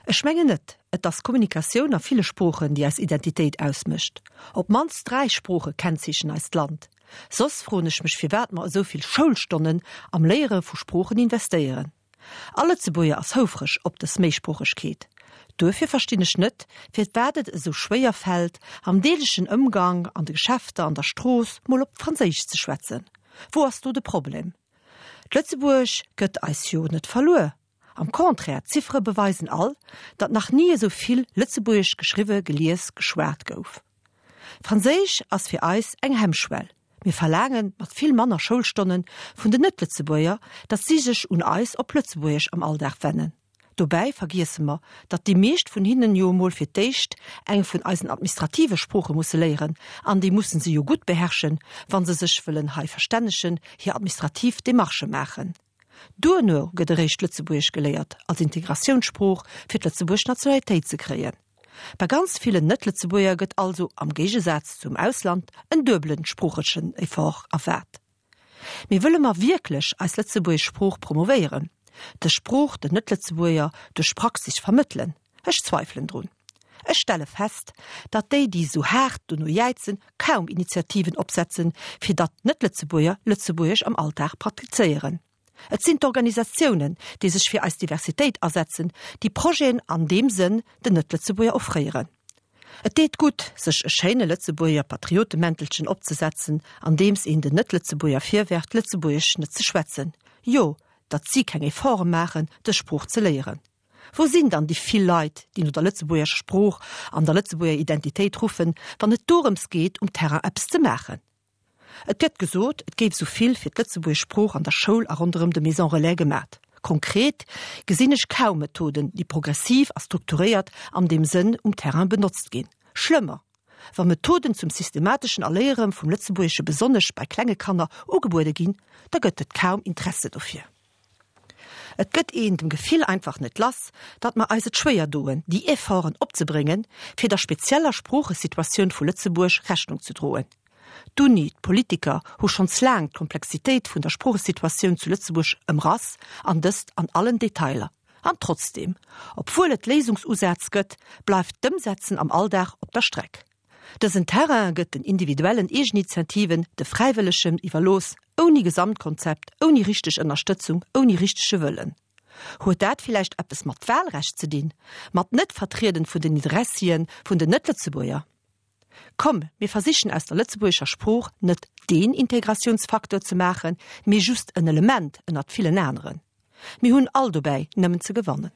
Ech mengen net. Et ass d'Kommunikatioun a ville Sproochen, déi eis Identitéit ausmécht. Op d'mannst 3 Sprooche kennzeechen eist Land. Soss froen ech mech firwat mer esou vill Schoulstonnen am Léiere vu Sproochen investéieren. All Lëtzebuerger ass houfreg op dës Méisproochegkeet. Duerfir verstinn ech net, firwat et esou schwéier fält, am deeglechen Ëmgang, an de Geschäfter, an der Strooss, mol op Franséisch ze schwätzen. Wou ass do de Problem? D'Lëtzebuerg gëtt eis jo net verluer. Am Contraire, d'Ziffere beweisen all, datt nach ni esou vill Lëtzebuergesch geschriwwe, gelies, geschwat gouf. Franséisch ass fir eis eng Hemmschwell. Mir verlaange mat vill manner Schoulstonne vun den Net-Lëtzebuerger, datt si sech un eis op Lëtzebuergesch am Alldag wennen. Dobäi vergiesse mer, datt déi meescht vun hinnen jo emol fir d'éischt eng vun eisen administrative Sprooche musse léieren, an déi musse se jo gutt beherrschen, wa se sech wëllen hei verstännegen, hir administrativ Demarchë maachen. Duerno gëtt eréischt Lëtzebuergesch geléiert als Integratiounssprooch fir d'lëtzebuergesch Nationalitéit ze kréien. Bei ganz villen Net-Lëtzebuerger gëtt also, am Géigesaz zum Ausland, en duebelen sproochlechen Effort erwaart. Mee wëlle mer wierklech eis lëtzebuergesch Sprooch promovéieren, dës Sprooch den Net-Lëtzebuerger duerch Praxis vermëttelen? Ech zweifelen drun. Ech stelle fest, datt déi, déi esou haart dono jäizen, kaum Initiativen opsetzen, fir datt Net-Lëtzebuerger Lëtzebuergesch am Alldag praktizéieren. Et sinn d'Organisatiounen, déi sech fir eis Diversitéit asetzen, déi Projeten an deem Sënn den Net-Lëtzebuerger offréieren. Et deet gutt, sech e schéine Lëtzebuerger Patriotemäntelchen opzesetzen, andeems een den Net-Lëtzebuerger virwerft, Lëtzebuergesch net ze schwätzen, jo, datt si keng Efforte maachen, dës Sprooch ze léieren. Wou sinn dann déi vill Leit, déi no der lëtzebuergescher Sprooch an der lëtzebuerger Identitéit ruffen, wann et dorëms geet, um Terrain eppes ze maachen? Et gëtt gesot, et géif esou vill fir d'lëtzebuergesch Sprooch an der Schoul a ronderëm de Maisons Relais gemat. Konkret gesinn ech kaum Methoden, déi progressiv a strukturéiert an deem Sënn um Terrain benotzt ginn. Schlëmmer, wa Methoden zum systemateschen Erléiere vum Lëtzebuergesche besonnesch bei klenge Kanner ugebuede ginn, da gëtt et kaum Interesse dofir. Et gëtt een dem Gefill einfach net lass, datt mer eis et schwéier doen, déi Efforten opzebréngen, fir der spezieller Sproochesituatioun vu Lëtzebuerg Rechnung ze droen. D'Uni, d'Politiker hu schonns laang d'Komplexitéit vun der Sproochesituatioun zu Lëtzebuerg ëmrass, an dëst an allen Detailer. An trotzdeem, obwuel et Léisungsusätz gëtt, bleift d'Ëmsetzen am Alldag op der Streck. Dësen Terrain gëtt den individuellen Eegeninitiativen, de Fräiwëllegen iwwerlooss, ouni Gesamtkonzept, ouni richteg Ënnerstëtzung, ouni richtege Wëllen. Huet dat villäicht eppes mat Wahlrecht ze dinn, mat Net-Vertrieden vun den Interessien vun den Net-Lëtzebuerger? Komm, mir versichen aus der lëtzebuergescher Sprooch net deen Integratiounsfaktor ze maachen, mee just en Element ënnert villen aneren. Mir hunn all dobäi nëmmen ze gewannen.